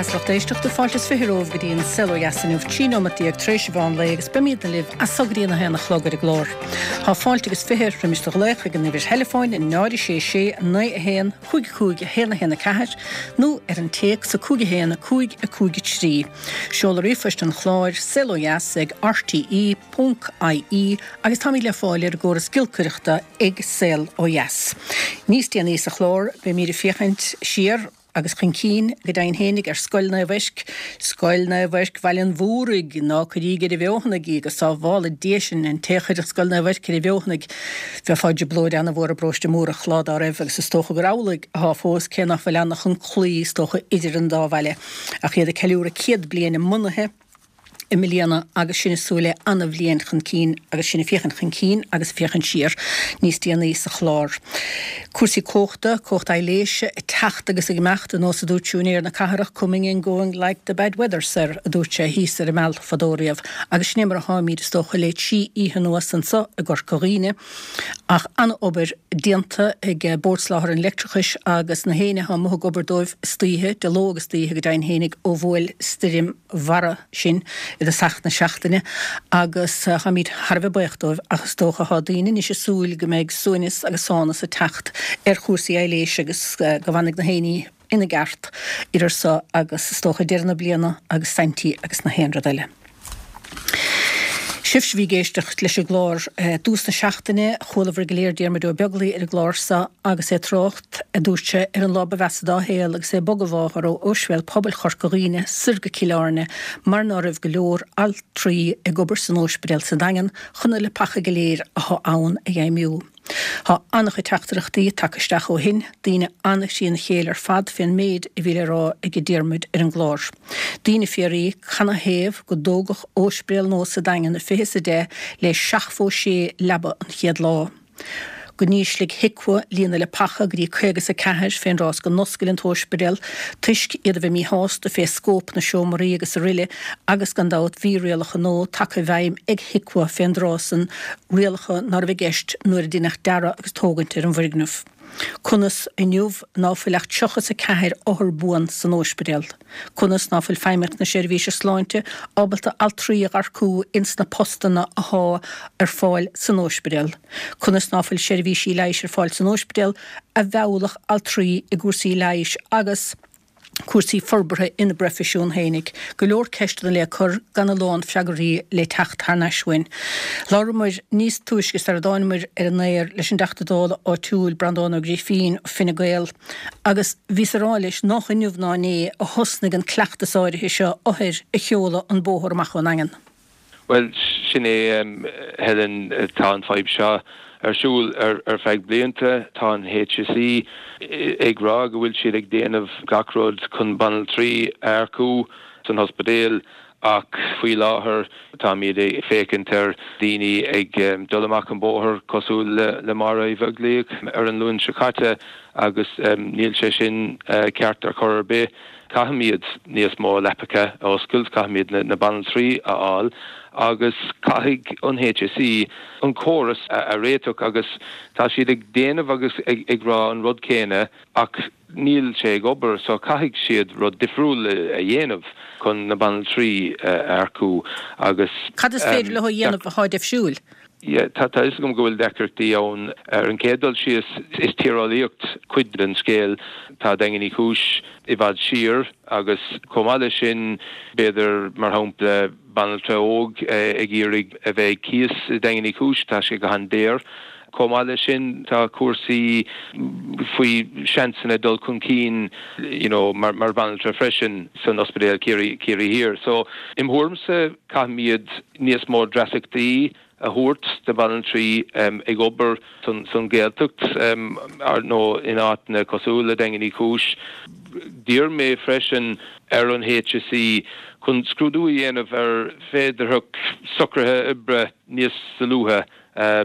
as lucht éisteachta, fáilte is 20 romhaibh go dtí an Saol Ó Dheas inniu, 13 nóimeat tar éis an mheán lae agus beimidne libh as so go dtí an 1 a chlog ar an gclár. Tá fáilte agus 20 roimis do ghlaoch ag an uimhir theileafóin 0 6 6 9 1 5 5 1 1 4 nó ar an téacs 5 1 5 5 3. Seoladh ríomhphoist an chláir, saolodheas ag rte ponc ie agus táimid le fáil ar an gcóras giolcaireachta ag Saol Ó Dheas. Níos déanaí sa chlár beimid ag féachaint siar agus chun cinn, go deimhin fhéinig, ar Scoil Naomh Eirc, Scoil Naomh Eirc Bhaile an Mhúraigh, ná cuiríg ar an bhfeothanaigh í, go sábhála Dia sinn, an té a chuirfeadh Scoil Naomh Eirc ar an bhfeothanaigh, bheifeá i dtrioblóid ana-mhór i bparóiste Múrach lá dá raibh, agus is dócha gur amhlaidh athá fós, cé nach bhfuil ann ach an claí, is dócha, idir an dá bhaile, ach iad ag ceiliúradh 100 bliain a mbunaithe. i mbliana agus sinn ag súil le ana-bhliain chun cinn agus sinn ag féachaint chun cinn agus ag féachaint siar níos déanaí sa chlár. Cúrsaí cumhachta, cumhacht aibhléise ag teacht agus ag imeacht, ar nós a dúirt siúinéir na cathrach, coming and going like the bad weather, sir, a dúirt sé thíos ar an Meal fadó riamh. Agus sin é mar atáimid, is dócha, le trí oíche anuas anso i gCorca Dhuibhne. Ach an-obair déanta ag Bord Soláthair an Leictreachais agus na héinne atá amuigh ag obair dóibh istoíche, de ló agus d'oíche go deimhin fhéinig ó bhuail stoirm Bharra sinn i dtosach na seachtaine agus táimid thar a bheith buíoch dóibh ach is dócha tá daoine anois ag súil go mbeidh suaimhneas agus sánas ag teacht ar chúrsaí aibhléise agus go bhfanfaidh na héinní ina gceart idir so agus is dócha deireadh na bliana agus Saintí agus na haon rud eile. Sibhse a bhí ag éisteacht leis an gclár i dtús na seachtaine, chualabhair go léir Diarmuid Ó Beaglaoi ar an gclár so agus é ag trácht, a dúirt sé, ar an lá ba mheasa dá shaol agus é ag bogadh a mháthar ó Ospidéal Pobail Chorca Dhuibhne soir go Cill Airne mar ná raibh go leor altraí ag obair san óispidéal sa Daingean chun na leapacha go léir athá ann a fheidhmiú. Tá an-chuid teachtaireachtaí tagtha isteach ó shin, daoine an-thrína chéile ar fad fén méid a bhí le rá ag Diarmuid ar an gclár. Daoine ag fiafraí canathaobh go dtógadh óispidéal nua sa Daingean i 2010 le 76 leaba an chéad lá? Go n-ísligh HIQA líon na leapacha go dtí 54 fén dtráth is go n-oscail an t-óispidéal toisc iad a bheith míshásta fé scóip na seomraí agus aroile agus gan dabht bhí rialacha nua tagtha i bhfeidhm ag HIQA fén dtráth san, rialacha ná raibh i gceist nuair a deineadh dearadh agus tógaint ar an bhfoirgneamh. Conas, inniu, ná fuil ach 34 othar buan san óispidéal? Conas ná fuil Feidhmeannacht na Seirbhíse Sláinte ábalta altraí a dh'earcú ins na postanna athá ar fáil san óispidéal? Conas ná fuil seirbhísí leighis ar fáil san óispidéal a mheallfadh altraí i gcúrsaí leighis agus cúrsaí forbartha ina bproifisiún fhéinig. Go leor ceisteanna le cur gan a lán freagraí le teacht thar n-ais uainn. Labhramar níos túisce sar a dtáinamar ar an aer leis an dTeachta Dála áitiúil Breandán Ó Grifín, Fine Gael, agus bhíos ag rá leis nách inniu ná inné a thosnaigh an cleachtas áirithe seo othair a sheoladh an bóthar amach ón nDaingean. Bhuel, sin é, Helen, tá an fadhb seo ar siúl ar feadh blianta. Tá an HSE ag rá go bhfuil siad ag déanamh gach rud chun banaltraí a earcú san ospidéal ach faoi láthair táimid ag féachaint ar daoine ag dul amach an bóthar cosúil le Máire Uí Bheaglaoich ar an Luan seo caite agus níl sé sin ceart ar chor ar bith. Caithfimid níos mó leapacha a oscailt, caithfimid na banaltraí a fháil agus caithfidh an HSE an córas a réiteach agus tá siad ag déanamh agus ag rá an rud céanna ach níl sé ag obair so caithfidh siad rud difriúil a dhéanamh chun na banaltraí a earcú agus. Cad is féidir leo a dhéanamh atá difriúil? Yeah, tá a fhios agam go bhfuil deacrachtaí ann. Ar an chéad dul síos, is tíreolaíocht cuid den scéal. Tá Daingean Uí Chúis i bhfad siar agus chomh maith leis sin, b'fhéidir, mar shampla, banaltra óg ag iarraidh a bheith ag cíos i Daingean Uí Chúis, tá sé go han-daor. Chomh maith leis sin, tá cúrsaí faoi seansanna dul chun cinn you know mar bhanaltra freisin san Ospidéal Ciarraí, Ciarraí Thiar. So, im thuairimse, caithfimid níos mó dreasachtaí a thabhairt do bhanaltraí ag obair san Ghaeltacht nó in áiteanna cosúil le Daingean Uí Chúis. D'iarr mé freisin ar an HSE chun scrúdú a dhéanamh ar féidearthacht socruithe oibre níos solúbtha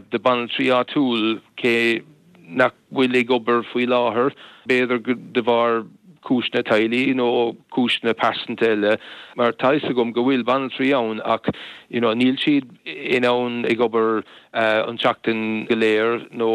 do bhanaltraí áitiúil cé nach bhfuil ag obair faoi láthair, b'fhéidir de bharr. cúiseanna teaghlaigh nó cúiseanna pearsanta eile mar tá fhios agam go bhfuil banaltraí ann ach you know níl siad in ann ag obair an tseachtain go léir nó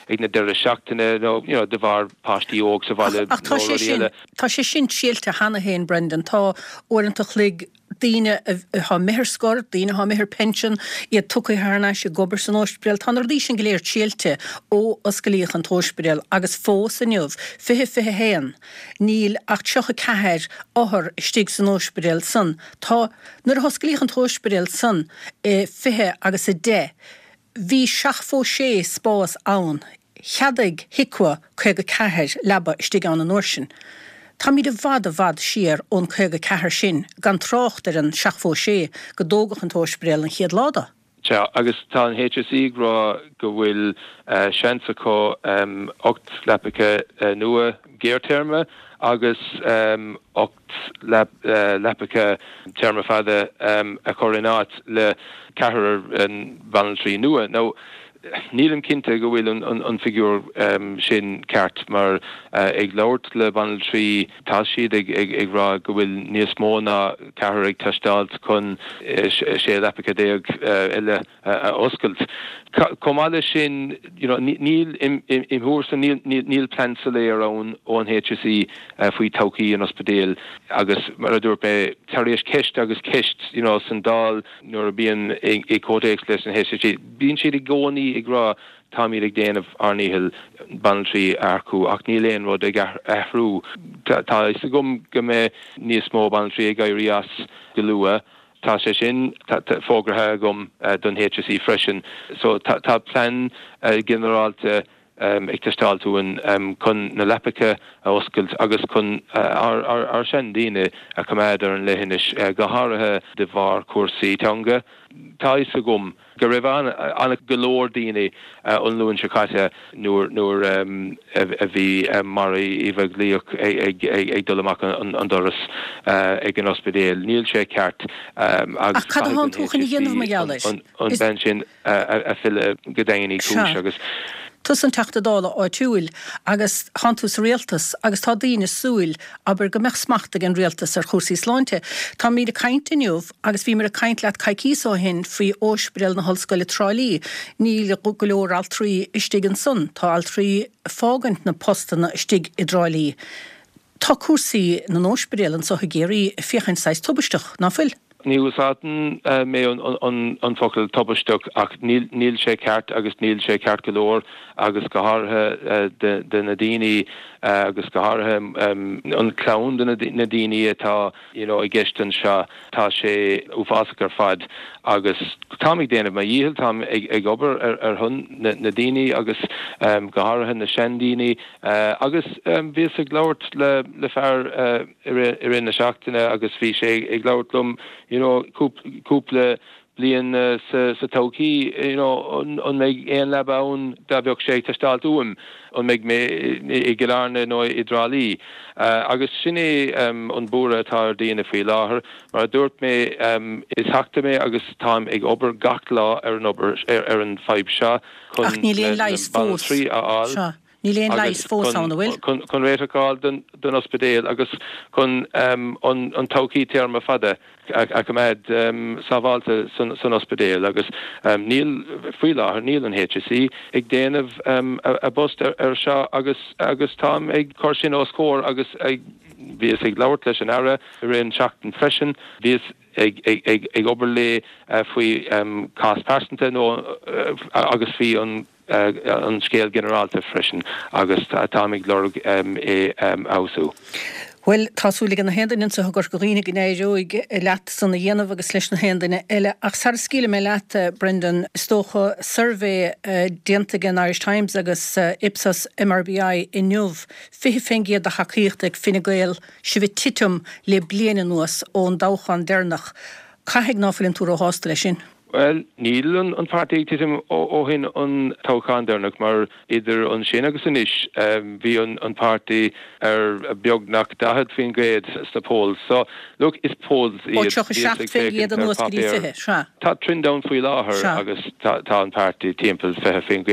ag na deireadh seachtaine nó you know de bharr páistí óg sa bhaile Ach tá sé sin, tá sé sin triailte cheana féin Brendan, tá uaireanta chloig daoine atá imithe ar scor, daoine atá imithe ar pension, iad tugtha thar n-ais ag obair san óispidéal. Tá na rudaí sin go léir triailte ó osclaíodh an t-óispidéal agus fós inniu, 2021, níl ach 34 othar istigh san óispidéal san. Tá, nuair a hosclaíodh an t-óispidéal san i 20 agus 10, Bhí 76 spás ann. Cheadaigh HIQA 54 leaba istigh ann an uair sin. Táimid i bhfad i bhfad siar ón 54 sin, gan trácht ar an 76 go dtógadh an t-óispidéal an chéad lá de. Sea, agus tá an HSE ag rá go bhfuil seans acu 8 leapacha nua gearrthéarma agus 8 leapacha téarma fada a chur in áit le ceathrar banaltraí nua. Now, nílim cinnte go bhfuil an figiúr sin ceart mar ag labhairt le banaltraí tá siad ag rá go bhfuil níos mó ná ceathrar ag teastáilt chun 16 leapacha eile a oscailt. Chomh maith leis sin, you know, níl, im thuairimse, níl plean soiléir ann ón HSE faoi todhchaí an ospidéil agus mar a dúirt mé, tar éis ceist agus ceist, you know, san Dáil nuair a bíonn i comhthéacs leis an HSE, bíonn siad i gcónaí ag rá táimid ag déanamh ár ndícheall banaltraí a earcú ach níl aon rud ag athrú. Tá a fhios agam go mbeidh níos mó banaltraí ag éirí as go luath. Tá sé sin fógartha agam don HSE freisin. So tá plean ginearálta ag teastáilt uainn chun na leapacha a oscailt agus chun ár seandaoine a choimeád ar an leithinis, go háirithe de bharr cúrsaí teanga. Tá a fhios agam go raibh an go leor daoine an Luan seo caite nuair nuair a bhí Máire Uí Bheaglaoich ag dul amach an doras ag an ospidéal. Níl sé ceart agus caithfidh an HSE an bhean sin a fhilleadh go Daingean Uí Chúis agus. Tusa an Teachta Dála áitiúil agus tánn tú sa rialtas agus tá daoine ag súil, abair, go mbeadh smacht ag an rialtas ar chúrsaí sláinte. Táimid ag caint inniu Agus bhíomar ag caint leat coicíos ó shin faoi Óispidéal na hOllscoile Trá Lí. Níl go leor altraí istigh ansan. Tá altraí ag fágaint na postanna istigh i dTrá Lí. Tá cúrsaí na n-óispidéal anso i gCiarraí ag féachaint saghas tubaisteach, ná fuil? Ní úsáideann mé an focal tubaisteach ach níl sé ceart agus níl sé ceart go leor agus go háirithe de na daoine agus go háirithe an clann de na daoine atá you know i gceist anseo. Tá sé uafásach ar fad agus táim ag déanamh mo dhícheall, táim ag obair ar shon na daoine agus go háirithe na seandaoine agus bhíos ag labhairt le fear i rith na seachtaine agus bhí sé ag labhairt liom you know cúpla bliain sa todhchaí, you know, an mbeidh aon leaba ann dá bheadh sé ag teastáilt uaim, an mbeidh mé i gCill Airne nó i dTrá Lí? Agus sin é an buaireamh atá ar daoine faoi láthair. Mar a dúirt mé, is Teachta mé agus táim ag obair gach lá ar an obair, ar an fadhb seo chun na banaltraí a fháil. Níl aon leigheas fós ann, an bhfuil? Chun réiteach a fháil don ospidéal agus chun an todhchaí téarma fada a choimeád sábháilte san ospidéal agus níl, faoi láthair, níl an HSE ag déanamh a bpost ar seo agus agus táim ag cur sin os comhair agus bhíos ag labhairt leis an Aire i rith an tseachtain freisin, bhíos ag obair léi faoi cás pearsanta nó agus faoi an an scéal ginearálta freisin agus táim ag lorg é a fheabhsú. Bhuel, tá súil ag na haon duine anseo i gCorca Dhuibhne go n-éireoidh leat san a dhéanamh agus leis na haon duine eile. Ach sara scaoilfidh mé leat, Brendan, is dócha suirbhé déanta ag an Irish Times agus Ipsos MRBI inniu, 20% de thacaíocht ag Fine Gael, sibh ag titim le bliain anuas ón dtoghchán deireanach. Caithfidh ná fuileann tú róshásta leis sin? Bhuel, níl an páirtí ag titim ó shin an toghchán deireanach mar idir ansin agus anois bhí an páirtí ar beagnach 40% sna polls. So, look, is polls iad. Ó 37% anuas go dtí 20, sea. Tá trend ann faoi láthair agus tá an páirtí timpeall 20%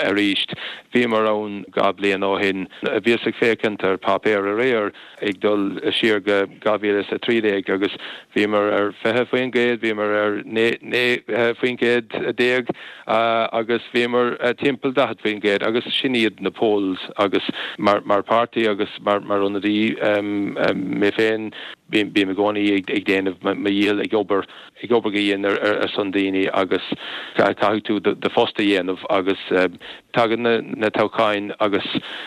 arís. Bhíomar ann 2 bliain ó shin. Bhíos ag féachaint ar páipéar aréir. ag dul siar go 2013 agus bhíomar ar 20%, bhíomar ar 19% agus bhíomar timpeall 40% agus sin iad na polls agus mar páirtí agus mar ionadaí mé féin bím i gcónaí ag déanamh mo dhícheall ag obair ag obair go dian ar son daoine agus caithfidh tú do phost a dhéanamh agus tagann na toghcháin agus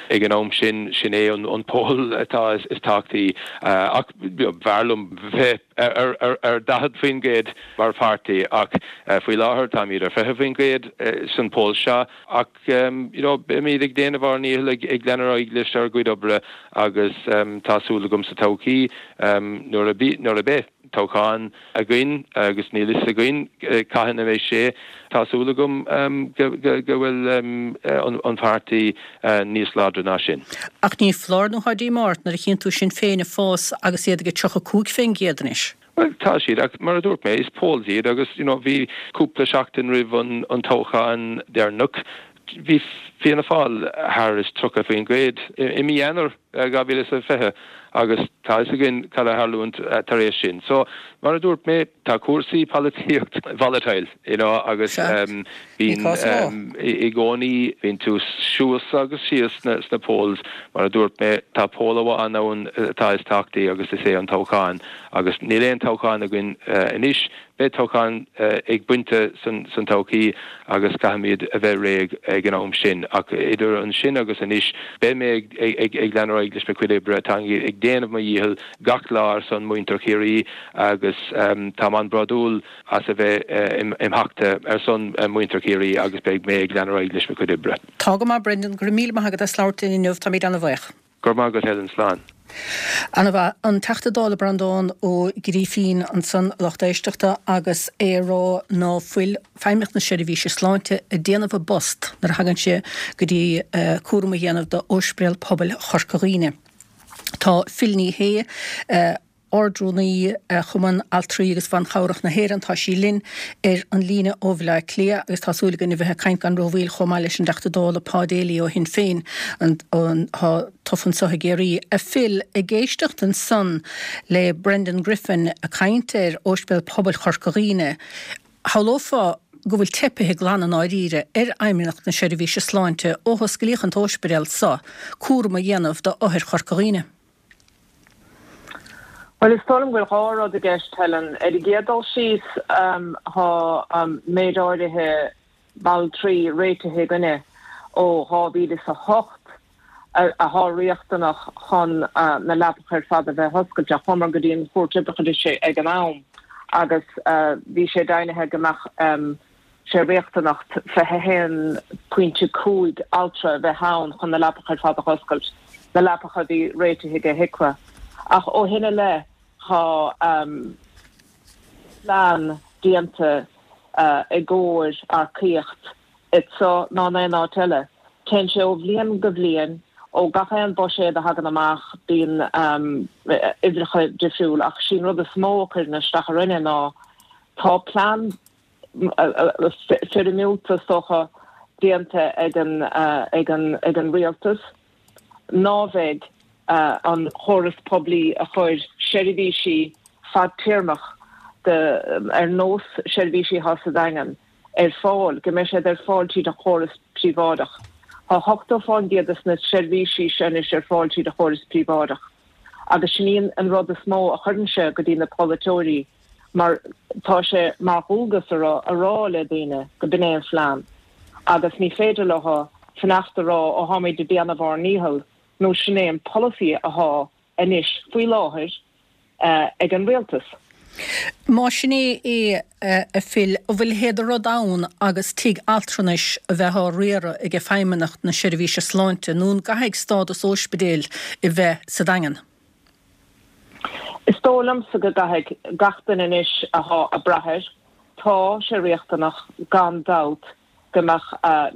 ag an am sin, sin é an poll atá is tábhachtaí. Ach b'fhearr liom bheith ar 40% mar pháirtí ach faoi láthair táimid ar 20% san poll seo ach you know beimid ag déanamh ár ndícheall ag leanadh ar aghaidh leis ár gcuid oibre agus tá súil agam sa todhchaí nuair a beidh toghchán againn agus níl fhios againn cathain a bheidh sé. Tá súil agam go bhfuil an páirtí níos láidre ná sin. Ach ní foláir nó tá díomá ort nuair a chíonn tú Sinn Féin ag fás agus iad ag 35% anois. Bhuel, tá siad, ach mar a dúirt mé, is polls iad agus you know bhí cúpla seachtain roimh an toghchán deireanach, bhí Fianna Fáil thar is 30% i mí Eanáir 2020 agus tá fhios againn cad a tharlúint tar éis sin. So, mar a dúirt mé, tá cúrsaí polaitíocht volatile, you know, agus bíonn i gcónaí, bíonn tú suas agus síos sna polls. Mar a dúirt mé, tá poll amháin ann atá is tábhachtaí agus is é an toghchán agus níl aon toghchán againn anois. Beidh toghchán ag pointe san todhchaí agus caithfimid a bheith réidh ag an am sin. Ach idir ansin agus anois, beidh mé ag leanadh ar aghaidh leis mo chuid oibre. Táim ag déanamh mo dhícheall gach lá ar son muintir Chiarraí agus táim an-bhródúil as a bheith im Theachta ar son muintir Chiarraí agus beidh mé ag leanadh ar aghaidh leis mo chuid oibre. Tá go maith Brendan, go raibh míle maith agat as labhairt linn inniu, táimid ana-bhaoch. Go raibh maith agat Helen, slán. Ana-mhaith. An Teachta Dála Breandán Ó Grífín ansan, a lucht éisteachta, agus é ag rá ná fuil Feidhmeannacht na Seirbhíse Sláinte ag déanamh a bpost nuair a thagann sé go dtí cúram a dhéanamh d'Ospidéal Pobail Chorca Dhuibhne. Tá Phil Ní Sheaghdha, Ard-Rúnaí Chumann Altraí agus Ban Chabhrach na hÉireann. Tá sí linn ar an líne ó Bhaile Átha Cliath agus tá súil againn a bheith ag caint gan rómhoill chomh maith leis an dTeachta Dála Pa Daly ó Shinn Féin atá tofa anso i gCiarraí. A Phil, ag éisteacht ansan le Brendan Griffin ag caint ar Ospidéal Pobail Chorca Dhuibhne, shamhlófá go bhfuil teipithe glan i ndáiríre ar Fheidhmeannacht na Seirbhíse Sláinte ó hosclaíodh an t-óispidéal so cúram a dhéanamh d'othair Chorca Dhuibhne. Bhuel, is dóigh liom go bhfuil dhá rud i gceist, Helen. Ar an gcéad dul síos, tá méid áirithe baltraí réitithe againne ó 2008 athá riachtanach chun na leapacha ar fad a bheith oscailte. Chuamar go dtí an Chúirt Oibreachais ag an am agus bhí sé deimhnithe go mbeadh sé riachtanach 21.5 altra a bheith ann chun na leapacha ar fad a dh'oscailt, na leapacha a bhí réitithe ag HIQA. Ach ó shin i leith tá plean déanta i gcomhair earcaíocht anso ná in aon áit eile. Téann sé ó bhliain go bhliain, ó gach aon buiséad a thagann amach bíonn uimhreacha difriúil ach sí'n rud is mó a chuireann isteach orainne ná tá plean foirmiúlta, is dócha, déanta ag an rialtas ná bheidh an chóras poiblí a chuir seirbhísí fadtéarmach ar nós seirbhísí atá sa Daingean ar fáil, go mbeidh siad ar fáil tríd an chóras príobháideach. Tá 80% de na seirbhísí seo anois ar fáil tríd an chóras príobháideach agus sin í an rud is mó a chuireann sé go dtí na polaiteoirí mar tá sé mar dhualgas orthu a rá le daoine go b'in é an phlean agus ní féidir leo fanacht a rá ó tháimid ag déanamh ár ndícheall nó sin é an polasaí athá anois faoi láthair ag an rialtas. Má sin é é, a Phil, an bhfuil a leithéid de rud ann agus tigh altranais a bheith á riaradh ag Feidhmeannacht na Seirbhíse Sláinte nó an gcaithfidh stádas óispidéil a bheith sa Daingean? Is dóigh liomsa go gcaithfidh gach duine anois athá ag brath air. Tá sé riachtanach, gan dabht, go mbeadh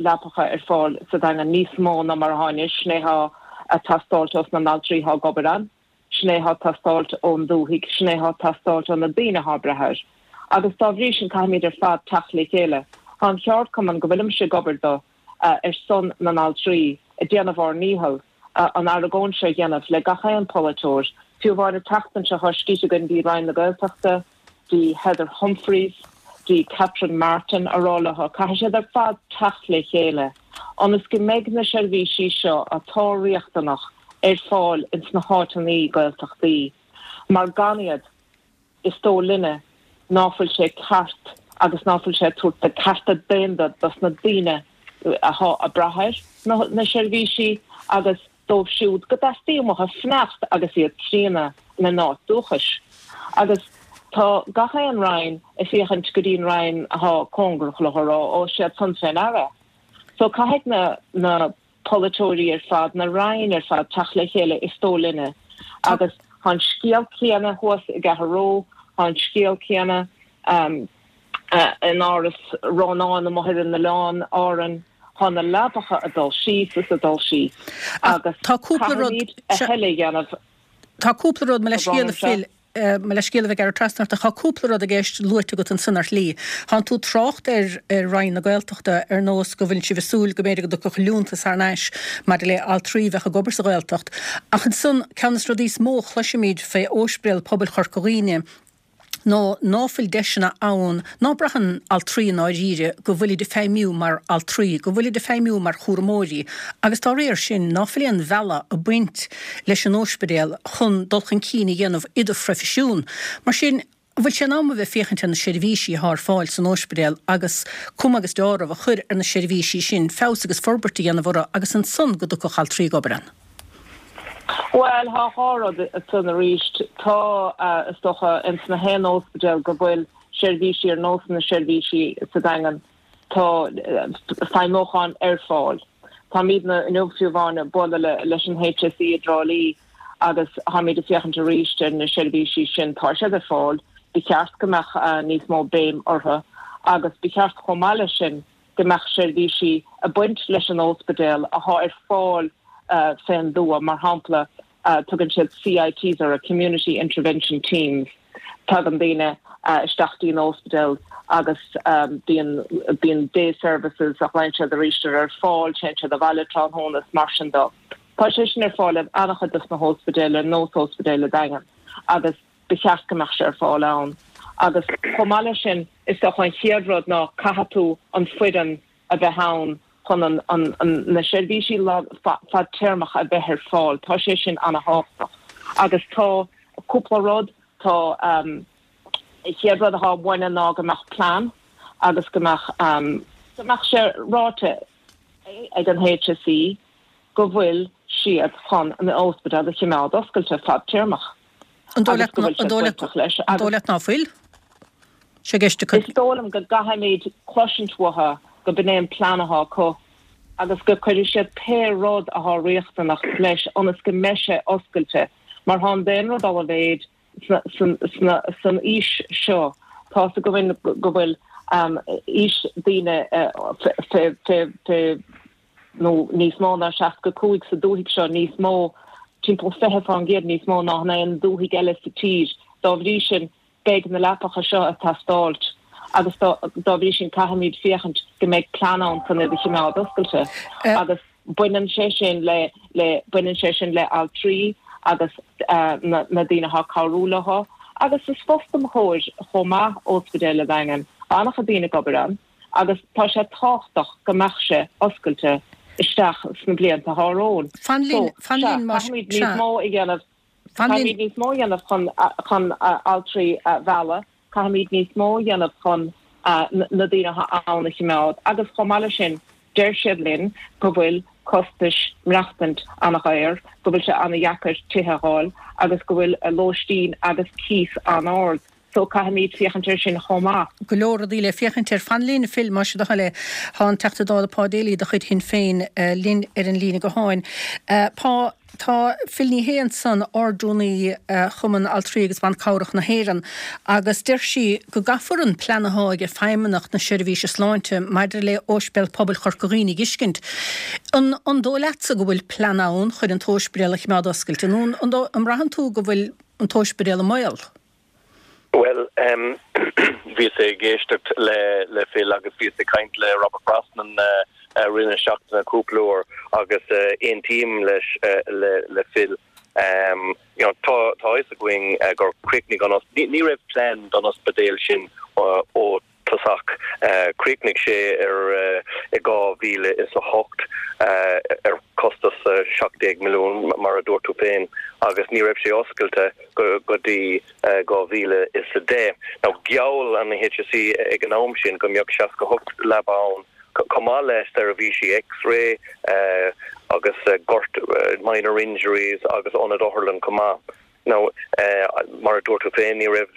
leapacha ar fáil sa Daingean, níos mó ná mar athá anois. Sin é athá a' teastáilt ós na n-altraí athá ag obair ann, sin é athá ag teastáilt ón dúthaigh, sin é athá ag teastáilt ó na daoine athá ag brath air. Agus dá bhrí sin caithfimid ar fad teacht le chéile. Tá an cheardchumann go bhfuilimse ag obair do, ar son na n-altraí, ag déanamh ár ndícheall an argóint seo a dhéanamh le gach aon pholaiteoir. Fiú amháin an tseachtain seo thá scríte againn dtí Roinn na Gaeltachta, dtí Heather Humphreys, dtí Catherine Martin a rá leo, caithfidh siad ar fad teacht le chéile ionas go mbeidh na seirbhísí seo atá riachtanach ar fáil ins na háiteannaí Gaeltachtaí mar gan iad is dóigh linne ná fuil sé ceart agus ná fuil sé ag tabhairt na cearta daonna dos na daoine athá ag brath ar na seirbhísí agus dóibh siúd go dteastaíonn uathu fanacht agus iad críonna ina n-áit dúchais. Agus tá gach aon Roinn ag féachaint go dtí an Roinn athá cóngarach leo a rá, ó, siad san fé ndeara. So caithfidh na na polaiteoirí ar fad, na Roinn ar fad teacht le chéile is dóigh linne. Agus tá an scéal céanna thuas i gCathair Ró, tá an scéal céanna in Áras Rónáin amuigh ar an oileán Árainn, tá na leapacha ag dul síos is ag dul síos agus caithfimid a thuilleadh a dhéanamh. Tá cúpla rud, mo leithscéal a Phil, mo leithscéal a bheith ag gearradh trasna ort ach tá cúpla rud i gceist luaite agat ansan ar shlí. Tánn tú ag trácht ar Roinn na Gaeltachta ar nós go bhfuileann sibh ag súil go mb'fhéidir go dtiocfadh liúntas thar n-ais maidir le altraí a bheadh ag obair sa Ghaeltacht. Ach ansan, ceann de na rudaí is mó a chloisimid fé Óispidéal Pobail Chorca Dhuibhne, ná ná fuil deiseanna ann, ná braitheann altraí i ndáiríre go bhfuilid ag feidhmiú mar altraí, go bhfuilid ag feidhmiú mar chúramóirí agus dá réir sin ná fuil aon bhealach ag baint leis an óispidéal chun dul chun cinn a dhéanamh i do phroifisiún. Mar sin, an bhfuil sé in am a bheith ag féachaint ar na seirbhísí athá ar fáil san óispidéal agus cuma agus deáramh a chur ar na seirbhísí sin, feabhas agus forbairt a dhéanamh orthu agus ansan go dtiocfadh altraí ag obair ann? Bhuel, thá dhá rud ansan arís. Tá, is dócha, ins na haon óspidéal go bhfuil seirbhísí ar nós na seirbhísí sa Daingean, tá feidhmiúchán ar fáil. Táimidne inniu fiú amháin ag bualadh leis an HSE i dTrá Lí agus táimid ag féachaint arís ar na seirbhísí sin. Tá siad ar fáil. Ba cheart go mbeadh níos mó béim orthu agus ba cheart chomh maith leis sin go mbeadh seirbhísí ag baint leis an óspidéal athá ar fáil fén dtuath, mar shampla tugann siad CITs orthu, Community Intervention Teams, tagann daoine isteach dtí an óspidéal agus bíonn bíonn day services a ghlaonn siad arís ar ar fáil, téann siad abhaile tráthnóna is mar sin dó. Tá sé sin ar fáil in an-chuid dos na hóspidéil ar nós Óspidéal an Daingin agus ba cheart go mbeadh sé ar fáil ann. Agus chomh maith leis sin, is dócha an chéad rud ná caithfidh tú an foireann a bheith ann chun an, an, na seirbhísí fadtéarmach a bheith ar fáil. Tá sé sin ana-thábhachtach. Agus tá cúpla rud, tá, an chéad rud atá uainne ná go mbeadh plean agus go mbeadh, go mbeadh sé ráite ag an HSE go bhfuil siad chun an ospidéal a chimeád oscailte fadtéarmach An dóigh leat agus go bhfuil siad bainteach leis An dóigh leat ná fuil sé i gceist acu? Is dóigh liom go gcaithfimid cloisint uathu go b'in é an plean athá acu agus go cuirfidh siad pé rud athá riachtanach leis ionas go mbeidh sé oscailte mar thá an daonra ag dul i mhéid san aois seo. Tá's againn go bhfuil aois daoine fé nó níos mó ná 65 sa dúthaigh seo, níos mó, timpeall 20% níos mó ná in aon dúthaigh eile sa tír. Dá bhrí sin, beidh na leapacha seo ag teastáilt agus dá bhrí sin caithfimid féachaint go mbeidh plean ann chun iad a chimeád oscailte agus baineann sé sin le le baineann sé sin le altraí agus na na daoine atá ag cabhrú leo agus is fostóir chomh maith Ospidéal an Daingin, an-chuid daoine ag obair ann. agus tá sé tábhachtach go mbeadh sé oscailte isteach sna blianta atá romhainn. Fan linn, fan linn, más ea. Caithfimid níos mó a dhéanamh, caithfimid níos mó a dhéanamh chun, chun altraí a mhealladh, caithfimid níos mó a dhéanamh chun na daoine atá ann a chimeád agus chomh maith leis sin deir siad linn go bhfuil costais maireachtaint an-dhaor, go bhfuil sé an-dheacair tithe a fháil agus go bhfuil lóistín agus cíos an-ard. So caithfimid féachaint air sin chomh maith. Go leor rudaí le féachaint air. Fan linn, a Phil, más é do thoil é. Tá an Teachta Dála Pa Daly de chuid Shinn Féin linn ar an líne gutháin. Pa. Tá Phil Ní Sheaghdha ansan, Ardrúnaí Chumann Altraí agus Ban Cabhrach na hÉireann, agus deir sí go gcaithfear an plean athá ag Feidhmeannacht na Seirbhíse Sláinte maidir le Óispidéal Pobail Chorca Dhuibhne a dh'fheiscint. An an dóigh leatsa go bhfuil plean ann chun an t-óispidéal a chimeád oscailte nó an an mbraitheann tú go bhfuil an t-óispidéal i mbaol? Bhuel, bhíos ag éisteacht le Phil agus bhíos ag caint le Robert Brosnan i rith na seachtaine cúpla uair agus aontaím leis le Phil. You know, tá tá fhios againn gur chríochnaigh an ní raibh plean don ospidéal sin ó tosach. Chríochnaigh sé ar i 2008 ar costas 17 milliún, mar a dúirt tú féin, agus ní raibh sé oscailte go dtí 2010. Now, gheall an HSE ag an am sin go mbeadh 68 leaba ann, chomh maith le seirbhísí X-ray agus gort minor injuries agus ionad otharlann chomh maith. Now, mar a dúirt tú féin, ní raibh,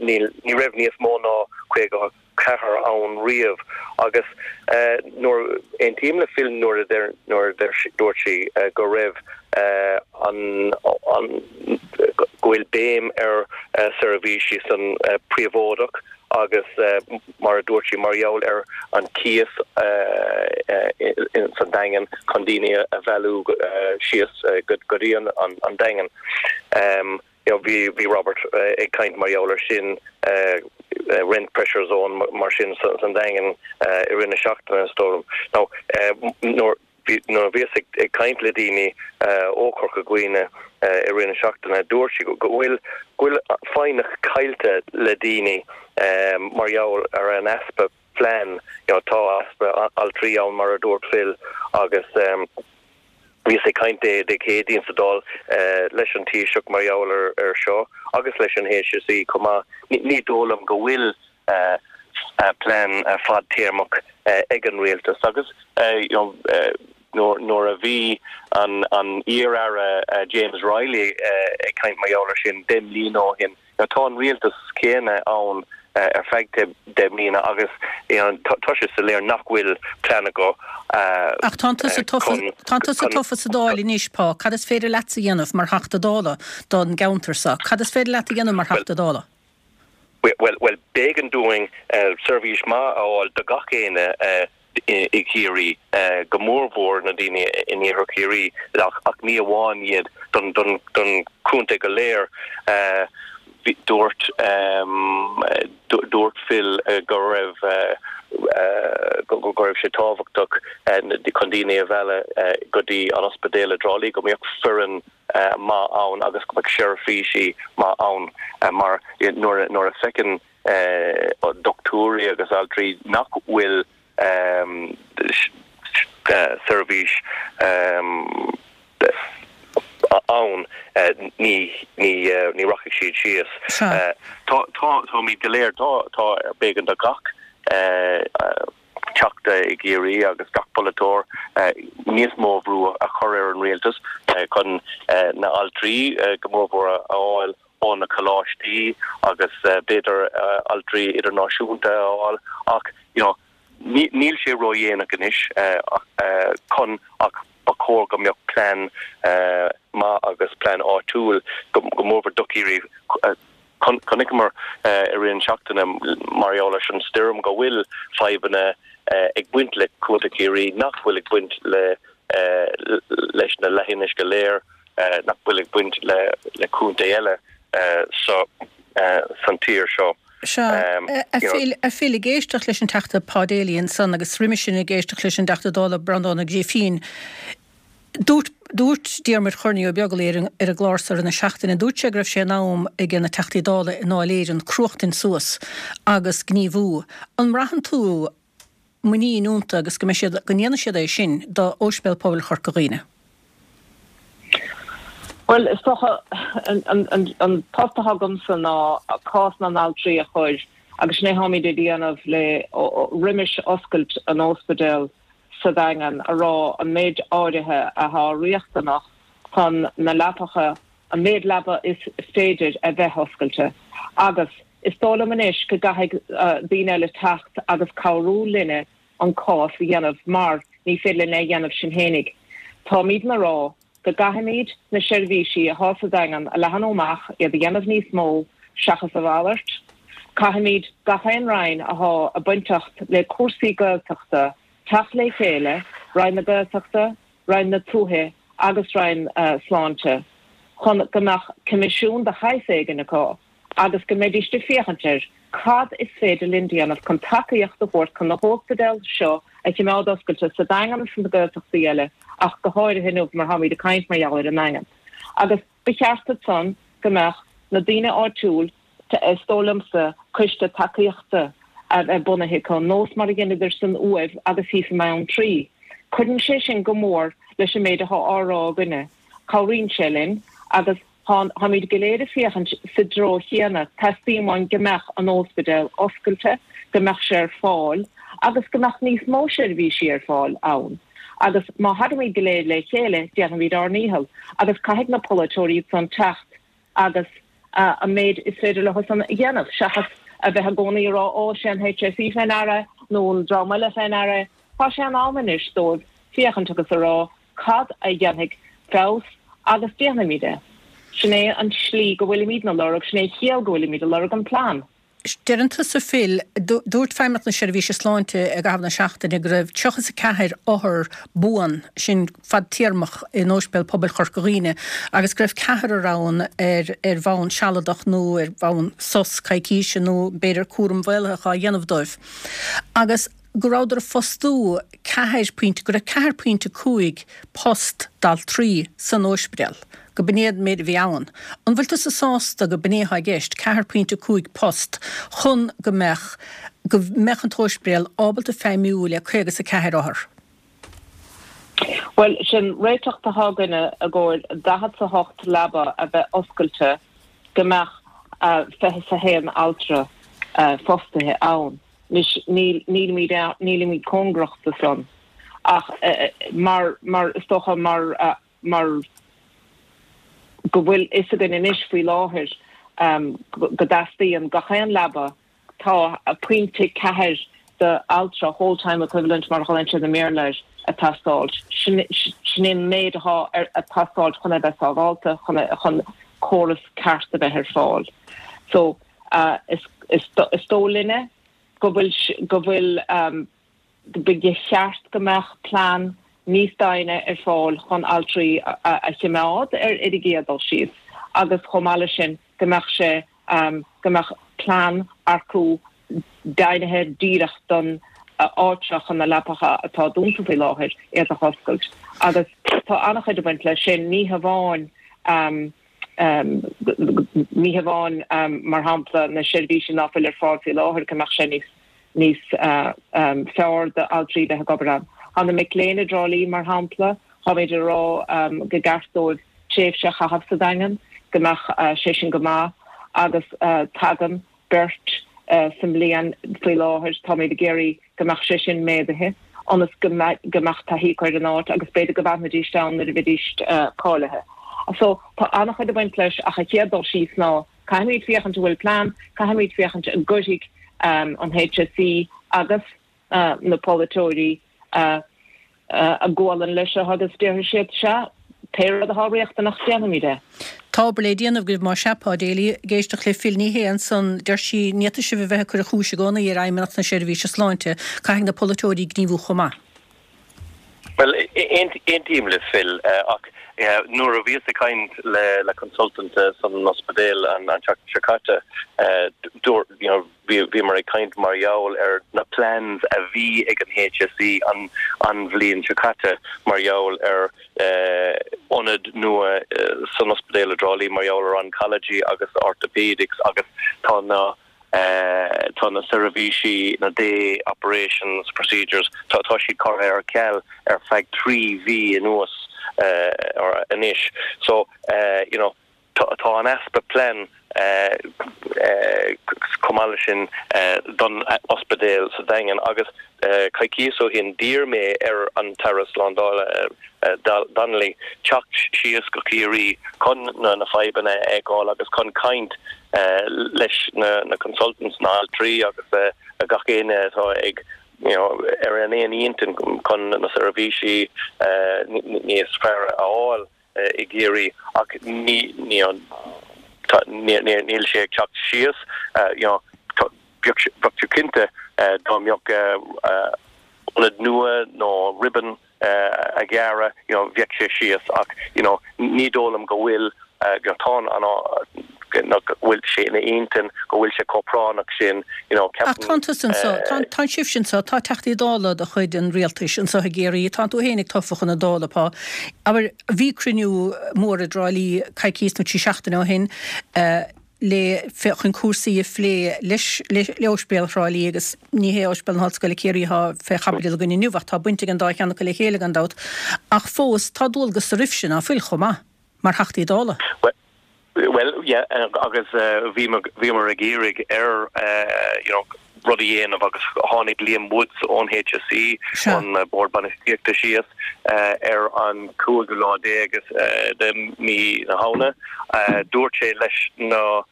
ní raibh níos mó ná 54 ann riamh agus nuair, aontaím le Phil nuair a deir, nuair a dúirt sí go raibh an, an, go bhfuil béim ar seirbhísí san príobháideach agus mar a dúirt sí, mar gheall ar an cíos san Daingean chun daoine a mhealladh síos go dtí an Daingean. Bhí Robert ag caint mar gheall ar sin, rent pressure zone mar sin san Daingean i rith na seachtaine, is dóigh liom. Now, nuair. Nuair a bhíos ag caint le daoine ó Chorca Dhuibhne i rith na seachtaine, dúirt siad go bhfuil go bhfuil foighneach caillte le daoine mar gheall ar an easpa plean. You know, tá easpa altraí ann mar a dúirt Phil agus bhíos ag caint Dé Dé Céadaoin sa Dáil leis an Taoiseach mar gheall ar seo agus leis an HSE chomh maith. Ní dóigh liom go bhfuil plean fadtéarmach ag an rialtas agus nuair a bhí an iar-aire James Reilly ag caint mar gheall ar sin 10 mbliana ó shin, tá an rialtas céanna ann ar feadh 10 mbliana agus tá sé soiléir nach bhfuil plean acu Ach tánn tusa tofa, tánn tusa tofa sa Dáil anois, Pa, cad is féidir leatsa a dhéanamh mar Theachta Dála don gceantar seo? Cad is féidir leat a dhéanamh mar Theachta Dála? Bhuel, b'éigean dúinn seirbhís maith a fháil do gach éinne i gCiarraí, go mórmhór na daoine in iarthar Chiarraí, ach ní amháin iad, don chontae go léir. Dúirt dúirt Phil go raibh go raibh sé tábhachtach chun daoine a mhealladh go dtí an ospidéal i dTrá Lí, go mbeadh foireann maith ann agus go mbeadh seirbhísí maith ann mar nuair a feiceann dochtúirí agus altraí nach bhfuil seirbhís ann ní ní rachaidh siad síos. Táimid go léir, tá b'éigean do gach Teachta i gCiarraí agus gach polaiteoir níos mó bhrú a chur ar an rialtas chun na altraí go mórmhór a fháil ó na coláistí agus b'fhéidir altraí idirnáisiúnta a fháil ach you know níl sé ródhéanach anois chun ach ba chóir go mbeadh plean maith agus plean áitiúil go mórmhór do Chiarraí Chonaiceamar i rith an seachtaine mar gheall leis an stoirm go bhfuil fadhbanna ag baint le Contae Chiarraí nach bhfuil ag baint le leis na leithinis go léir, nach bhfuil ag baint le contae eile san tír seo. Sea. A Phil, ag éisteacht leis an Teachta Pa Daly ansan agus roimis sin ag éisteacht leis an dTeachta Dála Breandán Ó Grífín, Dúirt, dúirt Diarmuid Chorny Ó Beaglaoi ar an, ar an gclár seo i rith na seachtaine, dúirt sé go raibh sé in am ag na Teachtaí Dála i nDáil Éireann cruachtaint suas agus gníomhú. An mbraitheann tú muinín iontu agus go mbeidh siad, go ndéanfaidh siad é sin do Óispidéal Pobail Chorca Dhuibhne? Bhuel, is dócha, an, an, an, an post atá agamsa ná cás na n-altraí a chur agus sin é atáimid ag déanamh le, roimis oscailt an óspidéil, sa Daingean a rá an méid áirithe athá riachtanach chun na leapacha, an méid leaba is féidir a bheith oscailte. Agus is dóigh liom anois go gcaithfidh daoine eile teacht agus cabhrú linne an cás a dhéanamh mar ní féidir linn é a dhéanamh sinn fhéinig. Táimidne a rá. Go gcaithfimid na seirbhísí athá sa Daingean a leathanú amach, iad a dhéanamh níos mó, seachas a mhalairt. Caithfimid gach aon Roinn athá ag bainteacht le cúrsaí Gaeltachta teacht le chéile, Roinn na Gaeltachta, Roinn na Tuaithe agus Roinn Sláinte, chun go mbeadh coimisiún de shaghas éigin acu agus go mbeidíst ag féachaint ar cad is féidir linn déanamh chun tacaíocht a thabhairt chun na hóspidéil seo a chimeád oscailte sa Daingean agus sna Gaeltachtaí eile ach go háirithe inniu mar táimid ag caint mar gheall ar an nDaingean. Agus ba cheart ansan go mbeadh na daoine áitiúil, is dóigh liomsa, coiste tacaíochta a bheith bunaithe acu, nós mar a dheineadar san Uaimh agus thíos i mBeanntraí. Cuireann sé sin go mór leis an méid atá á rá againne. Cabhraíonn sé linn agus táimid go léir ag féachaint sa dtreo chéanna, teastaíonn uainn go mbeadh an óspidéal oscailte, go mbeadh sé ar fáil agus go mbeadh níos mó seirbhísí ar fáil ann. Agus má thagaimid go léir le chéile, déanfaimid ár ndícheall. Agus caithfidh na polaiteoirí ansan teacht agus an méid is féidir leo san a dhéanamh, seachas a bheith i gcónaí ag rá 'Ó, sé an HSE fé ndeara' nó an dream eile fé ndeara. Tá sé in am anois dóibh féachaint agus a rá cad a dhéanfaidh feabhas agus déanfaimid é. Sin é an tslí go bhfuilimidne ag lorg, sin é an chiall go bhfuilimid ag lorg an plean. Deireann tusa Phil, dúirt Feidhmeannacht na Seirbhíse Sláinte i gcaitheamh na seachtaine go raibh 34 othar buan, sin fadtéarmach, in Ospidéal Pobail Chorca Dhuibhne agus go raibh ceathrar ann ar ar bhonn sealadach nó ar bhonn sos coicíse nó b'fhéidir cúram mhaolaitheach á dhéanamh dóibh. Agus go rabhadar ag fostú ceathair pointe, go raibh 4.5 post d'altraí san óispidéal, go b'in é an méid a bhí ann. An bhfuil tusa sásta go b'in é atá i gceist, 4.5 post chun go mbeadh, go mbeadh an t-óispidéal ábalta feidhmiú le 54 othar? Bhuel, sin réiteach atá againne i gcomhair 48 leaba a bheith oscailte go mbeadh 21 altra fostaithe ann. Anois, níl, nílimid, nílimid cóngarach do san, ach mar, mar, is dócha mar, mar go bhfuil fhios againn anois faoi láthair go dteastaíonn gach aon leaba, tá pointe ceathair d'altra, whole time equivalent mar a ghlaonn siad i mBéarla air, ag teastáilt. Sin, sin é an méid atá ag teastáilt chun é bheith sábhálta, chun, chun córas ceart a bheith ar fáil. So. Is dóigh linne go bhfuil, go bhfuil, ba cheart go mbeadh plean níos doimhne ar fáil chun altraí a chimeád ar ar an gcéad dul síos agus chomh maith leis sin go mbeadh sé, go mbeadh plean acu deimhnithe díreach don áit seo chun na leapacha atá dúnta faoi láthair iad a dh'oscailt. Agus tá an-chuid ag baint leis sin, ní hamháin. Ní hamháin, mar shampla, na seirbhísí ná fuil ar fáil faoi láthair, go mbeadh sé níos níos fearr d'altraí bheith ag obair ann. Tá na mic léinn i dTrá Lí, mar shampla, táimid ag rá go gceart dóibh tréimhse a chaitheamh sa Daingean, go mbeadh sé sin go maith agus tagann beirt sa mbliain faoi láthair. Táimid ag iarraidh go mbeadh sé sin méadaithe ionas go mbeadh taithí acu ar an áit agus b'fhéidir go bhfanfaidís ann nuair a bheidís cáilithe. So, tá an-chuid ag baint leis ach an chéad dul síos ná caithfimid féachaint an bhfuil plean, caithfimid féachaint an gcuirfidh an HSE agus na polaiteoirí a gualainn leis seo agus déarfaidh siad, sea, pé rud atá riachtanach, déanfaimid é. Tá obair le déanamh agaibh más ea, Pa Daly. Ag éisteacht le Phil Ní Sheaghdha ansan, deir sí, ní fhéadfaidh sibh a bheith ag cur an chúis i gcónaí ar Fheidhmeannacht na Seirbhíse Sláinte, caithfidh na polaiteoirí gníomhú chomh maith. Bhuel, aontaím le Phil, ach nuair a bhíos ag caint le consultant san ospidéal an tseachtain seo caite, dúirt, you know, Bhíomar ag caint mar gheall ar na plans a bhí ag an HSE an an bhliain seo caite mar gheall ar ionad nua san ospidéal i dTrá Lí mar gheall ar oncology agus orthopaedics agus tá na tá na seirbhísí, na day operations procedures, tá tá siad curtha ar ceal ar feadh 3 mhí anuas anois. So, you know, Tá an easpa plean chomh maith leis sin don ospidéal sa Daingean agus coicíos ó shin d'iarr mé ar an tAire Slándála Donnelly teacht síos go Ciarraí chun na fadhbanna a fheiceáil agus chun caint leis na consultants, na altraí agus gach éinne atá ag you know ar an aon intinn chun na seirbhísí níos fearr a fháil. i gCiarraí ach ní ní tá níl sé ag teacht síos you know bheadh tú cinnte dá mbeadh ionad nua nó ribbon a ghearradh you know bheadh sé síos ach you know ní dóigh liom go bhfuil you know tá an go bhfuil sé ina intinn go bhfuil sé chomh práinneach sin you know Ach tánn tusa anso, tá, tánn sibhse anso, tá Teachtaí Dála de chuid an Rialtais anso i gCiarraí, tánn tú fhéinig tofa chun na Dála, Pá. Abair, bhí cruinniú mór i dTrá Lí coicíos nó 3 seachtaine ó shin, le chun cúrsaí a phlé leis le Ospidéal Thrá Lí agus ní hé Ospidéal na hOllscoile Ciarraí atá fé chaibidil againn inniu ach tá baint ag an dá cheann acu le chéile gan dabht. Ach fós tá dualgas oraibhse, ná fuil, chomh maith, mar Theachtaí Dála? Bhuel, yeah, agus bhíomar ag iarraidh ar you know rud a dhéanamh agus tháinig Liam Woods ón HSE, ón Bord Bainistíochta síos ar an cúigiú lá déag de mhí na Shamhna. Dúirt sé leis na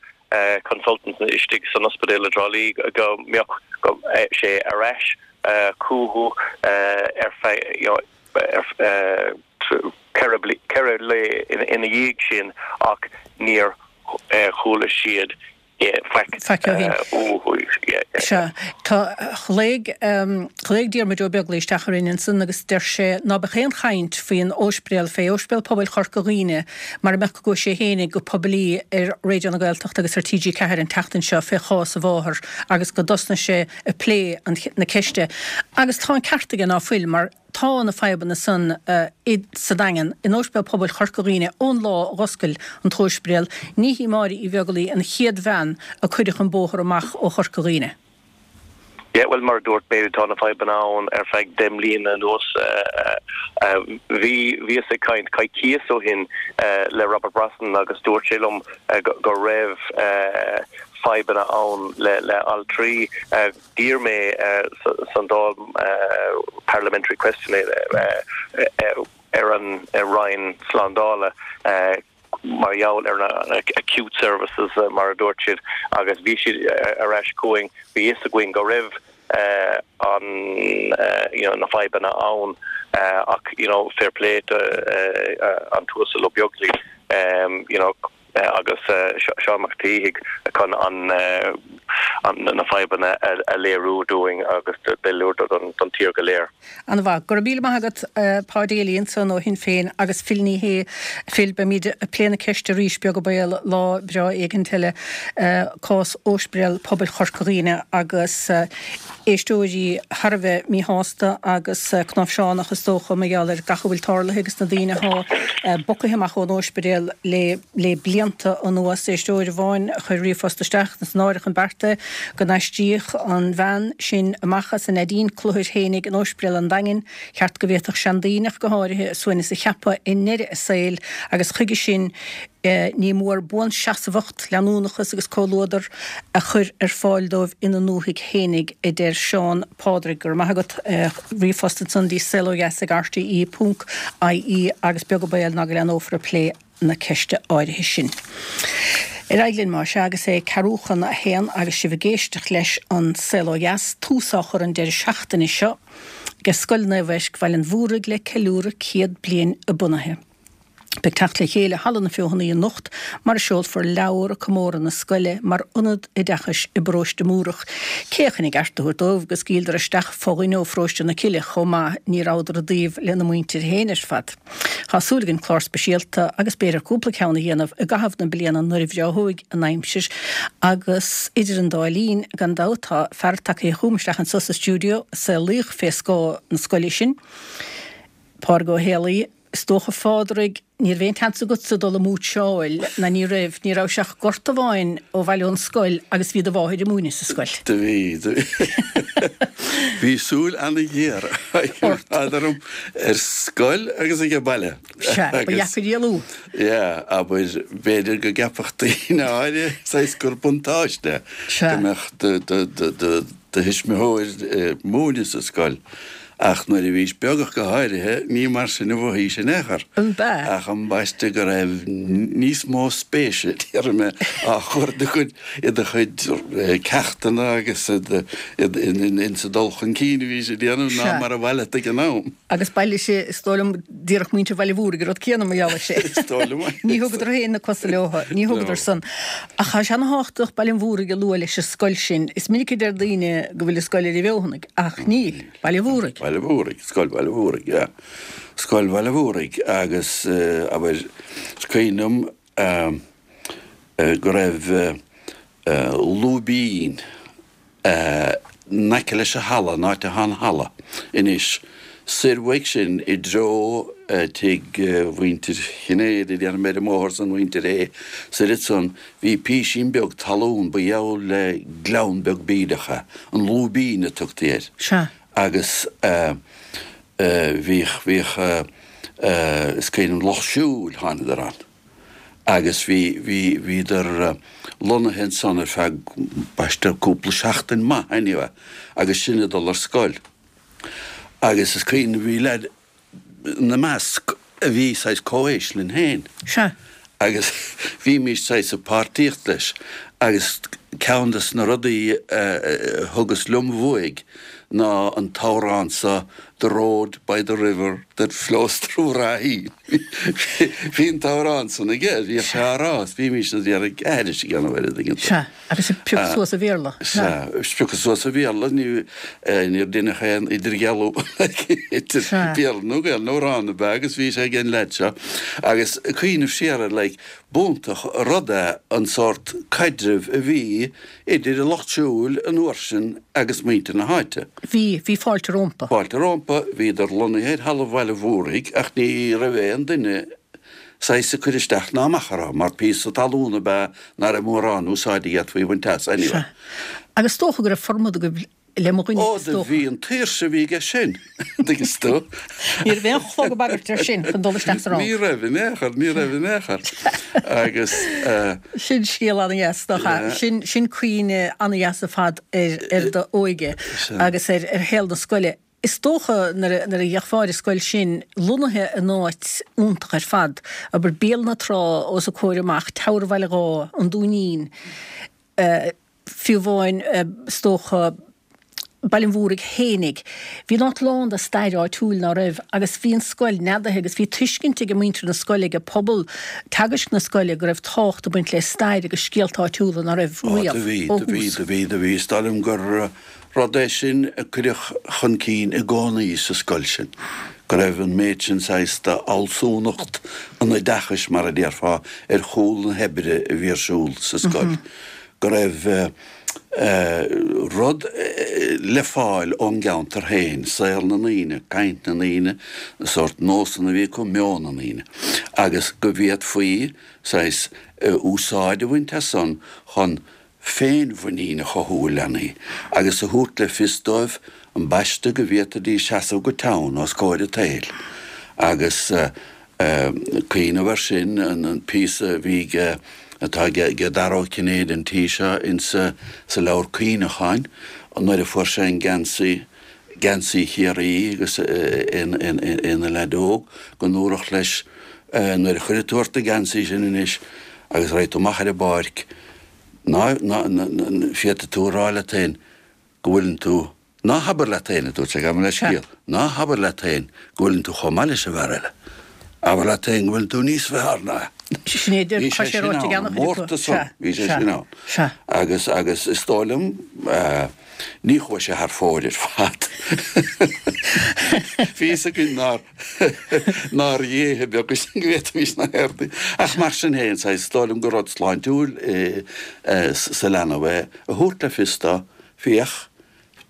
consultants istigh san ospidéal i dTrá Lí go mbeadh sé ar ais chucu ar feadh you know 4 lae ina dhiaidh sin ach níor chuala siad faic Faic ó shin. uathu. Sea. Tá, ghlaoigh, ghlaoigh Diarmuid Ó Beaglaoich isteach orainn ansan agus deir sé ná beadh aon chaint faoin óispidéal, fé Ospidéal Pobail Chorca Dhuibhne mara mbeadh go gcuaigh sé fhéinig go poiblí ar Raidió na Gaeltachta agus ar TG4 an tseachtain seo fé chás a mháthar agus go dtosnaigh sé ag plé an, na ceiste. Agus tá an ceart aige ná fuil mar Tá na fadhbanna san i sa Daingean, in Óispidéal Pobail Chorca Dhuibhne ón lá a dh'oscail an t-óispidéal. Ní hí Máire Uí Bheaglaoi an chéad bhean a cuireadh chun bóthair amach ó Chorca Dhuibhne. Yeah, bhuel, mar a dúirt mé, tá na fadhbanna ann ar feadh 10 mbliana anuas. Bhí, bhíos ag caint coicíos ó shin le Robert Brosnan agus dúirt sé liom go raibh fadhbanna ann le altraí. D'iarr mé san Dáil parliamentary question ar an Roinn Slándála mar gheall ar na acute services mar a dúirt siad agus bhí siad ar ais chugainn, bhí fhios againn go raibh an you know na fadhbanna ann ach you know fair play to an tUasal Ó Beaglaoich you know agus Seán Mac Taoithigh chun na fadhbanna a léiriú dúinn agus léiriú don tír go léir. An-mhaith. Go raibh míle maith agat, Pa Daly ansan ó Shinn Féin agus Phil Ní Sheaghdha. Phil, beimid ag plé na ceiste arís, beag an baol, lá breá éigint eile, cás Óispidéal Pobail Chorca Dhuibhne agus éisteoirí thar a bheith míshásta agus cnáimhseánach is dócha mar gheall ar gach a bhfuil tarlaithe agus na daoine athá bogtha amach ón óispidéal le le blianta anuas. Éisteoir amháin a chuir ríomhphost isteach, is náireach an beart é go n-aistríodh an bhean sin amach as a neidín cluthair fhéinig in Óispidéal an Daingin. Cheart go bhféadfadh seandaoine ach go háirithe a suaimhneas a cheapadh i ndeireadh a saoil agus chuige sin ní mór buanseasmhacht, leanúnachas agus comhluadar a chur ar fáil dóibh ina ndúthaigh fhéinig, a deir Seán Pádraig. Go raibh maith agat. Ríomhphost ansan dtí saolodheas ag rte ponc ie agus beag an baol ná go leathnófar ag plé na ceiste áirithe sin. Ar aghaidh linn más ea agus é ceathrú chun a haon agus sibh ag éisteacht leis An Saol Ó Dheas, tús á chur an deireadh seachtaine seo ag Scoil Naomh Eisc Bhaile an Mhúraigh le ceiliúradh 100 bliain a bunaithe. Beidh teacht le chéile i Halla na Feothanaí anocht mar a seolfar leabhar ag comóradh na scoile mar ionad oideachais i bparóiste Múrach. Cé chun a gceart a thabhairt dóibh go scaoileadar isteach fo-dhuine ó pharóiste na Cille chomh maith, ní rabhadar i dtaobh lena muintir féin ar fad. Tá súil againn clár speisialta agus b'fhéidir cúpla ceann a dhéanamh i gcaitheamh na bliana nuair a bhreáthóidh an aimsir agus idir an dá linn, gan dabht, tá fear tagtha chugam isteach anso sa stiúideo a saolaíodh fé scáth na scoile sin, Pádraig Ó Héalaí. Is dócha, a Phádraig, ní raibh aon tseans agatsa dul ag múitseáil, ná ní raibh, ní rabhais ach gort amháin ó bhaile ón scoil agus bhí do mháthair ag múineadh sa scoil. Do bhí, do bhí. Bhí súil ana-ghéar Ort. orm ar scoil agus ag an baile. Sea, ba dheacair éalú. Yeah, abair, b'fhéidir go gceapfadh daoine áirithe saghas gur buntáiste Sea. go mbeadh do, do, do, do, do thuismitheoir ag múineadh sa scoil. Ach nuair a bhís beag ach go háirithe, ní mar sin a mhothaís in aon chor. An b'ea? Ach ambaiste go raibh níos mó spéise, déarfaidh mé, á chur i do chuid, i do chuid ceachtanna agus in sa dul chun cinn a bhís ag déanamh ná mar a ba mhaith leat ag an am. Agus b'amhlaidh sin, is dóigh liom, déarfadh muintir Bhaile Mhúraigh an rud céanna mar gheall air sin. Is dóigh liom é. Ní thugadar féin na cosa leo, ní thugadar san. Ach tá sé ana-thábhachtach Baile an Mhúraigh a lua leis an scoil sin. Is minic a deir daoine go bhfuil an scoil ar an bhFeothanaigh, ach níl. Baile Mhúraigh. Baile Mhúraigh, Scoil Bhaile Mhúraigh, yeah. Scoil Bhaile Mhúraigh agus abair, is cuimhin liom go raibh lúibín in aice leis an halla, an áit atá an halla anois, soir uaidh sin i dtreo tigh mhuintir Chinnéide, déarfaidh mé ar an mbóthar san, mhuintir Aodha, soir ansan, bhí písín beag talún, ba gheall le gleann beag bídeach é, an lúibín a tugtaí air. Sea. Agus bhíodh, bhíodh, is cuimhin liom, lucht siúil, thánadar ann agus bhí, bhí, bhíodar lonnaithe ansan ar feadh, b'aistear, cúpla seachtain maith anyway agus sinn ag dul ar scoil. Agus is cuimhin liom, bhí leaid ina measc a bhí saghas comhaois linn féin. Sea. Agus bhímís saghas ag páirtíocht leis agus ceann des na rudaí a thugas liom uaidh ná an t-amhrán so The road by the river that flows through Raheen. Bhí an t-amhrán san aige, bhíodh sé á rá is bhímís ag iarraidh aithris a dhéanamh air an dtuigeann tú. Sea. Agus ag piocadh suas an Bhéarla. Sea, ag piocadh suas an Bhéarla, níor deineadh aon idirdhealú idir Béarla nó Gaelainn, amhrán ab ea agus bhí sé ag an leaid seo. Agus ag cuimhneamh siar air, like, b'iontach an rud é an sórt caidrimh a bhí idir an lucht siúil an uair sin agus muintir na háite. Bhí, bhí fáilte rompu. Fáilte rompu, bhíodar lonnaithe ar thalamh Bhaile Mhúraigh ach ní raibh aon duine saghas ag cur isteach ná amach orthu, mar píosa talún ab ea ná raibh mórán úsáide a d'fhéadfaí a bhaint as, anyway. Sea. Agus is dócha go raibh formad agaibh le mo dhuine, Ó, is do dócha. bhí an tsaoirse a bhí aige sin, an dtuigeann tú. Ní raibh aon chlog ag bagairt air sin chun dul isteach sa rang. Ní raibh in aon chor, ní raibh in aon chor. Agus eh. Sin scéal an-dheas, nach ea? Sin, sin cuimhne an-dheas ar fad ar, ar d'óige agus ar, ar shaol na scoile. Is dócha nuair a gheofá ar an scoil sin, lonnaithe in áit iontach ar fad, abair Béal na Trá os a comhair amach, Teamhair Bhaile Dháith, an Dúinín, fiú amháin is dócha Baile an Mhúraigh fhéinig. Bhí an áit lán de stair áitiúil, ná raibh? Agus bhí an scoil neadaithe agus bhí tuiscint ag muintir na scoile, ag pobal teagaisc na scoile go raibh tábhacht ag baint le stair agus scéalta áitiúla, ná raibh? Ó do bhí, riamh, ó do bhí, thús. do bhí, do bhí. Is dóigh liom gur Rud é sin a cuireadh chun cinn i gcónaí sa scoil sin, go raibh an méid sin saghas d'fhealsúnacht an oideachais, mar a déarfá, ar chúl na hoibre a bhí ar siúl sa scoil, go raibh rud le fáil ón gceantar féin, saol na ndaoine, caint na ndaoine, na sórt nósanna a bhí acu, meon na ndaoine, agus go bhféadfaí saghas úsáid a bhaint as san chun féinmhuinín a chothú i leanaí agus a thabhairt le fios dóibh ambaiste go bhféadfaidís seasamh go teann os comhair an tsaoil. Agus cuimhneamh air sin, an píosa a bhí aige, atá aige Dara Ó Cinnéide an tí seo insa sa leabhar cuimhneacháin nuair a fuair sé an geansaí, geansaí Chiarraí agus é ina leaid óg, go ndúradh leis nuair a chuirfidh tú ort an geansaí sin anois agus raghaidh tú amach ar an bpáirc, Ná, ná, féadfaidh tú a rá leat féin go bhfuileann tú, ná habair leat féin, a dúirt sé, gabh mo leithscéal, ná habair leat féin go bhfuileann tú chomh maith leis an bhfear eile. Abair leat féin go bhfuileann tú níos fearr ná é. Sin é, Bhí tá sé sé sin ráite ag ann, an an-chuid acu. mórtas san, Sea, bhí sé sea, sin ann. sea. Agus, agus is dóigh liom, eh, ní chuaigh sé thar fóir ar fad. Bhí fhios againn nár, Nár dhéithe beaga sinn go bhféadfaimis na haird. Ach mar sin féin, saghas, is dóigh liom gur rud sláintiúil sa leanbh é a thabhairt le fios dó, féach,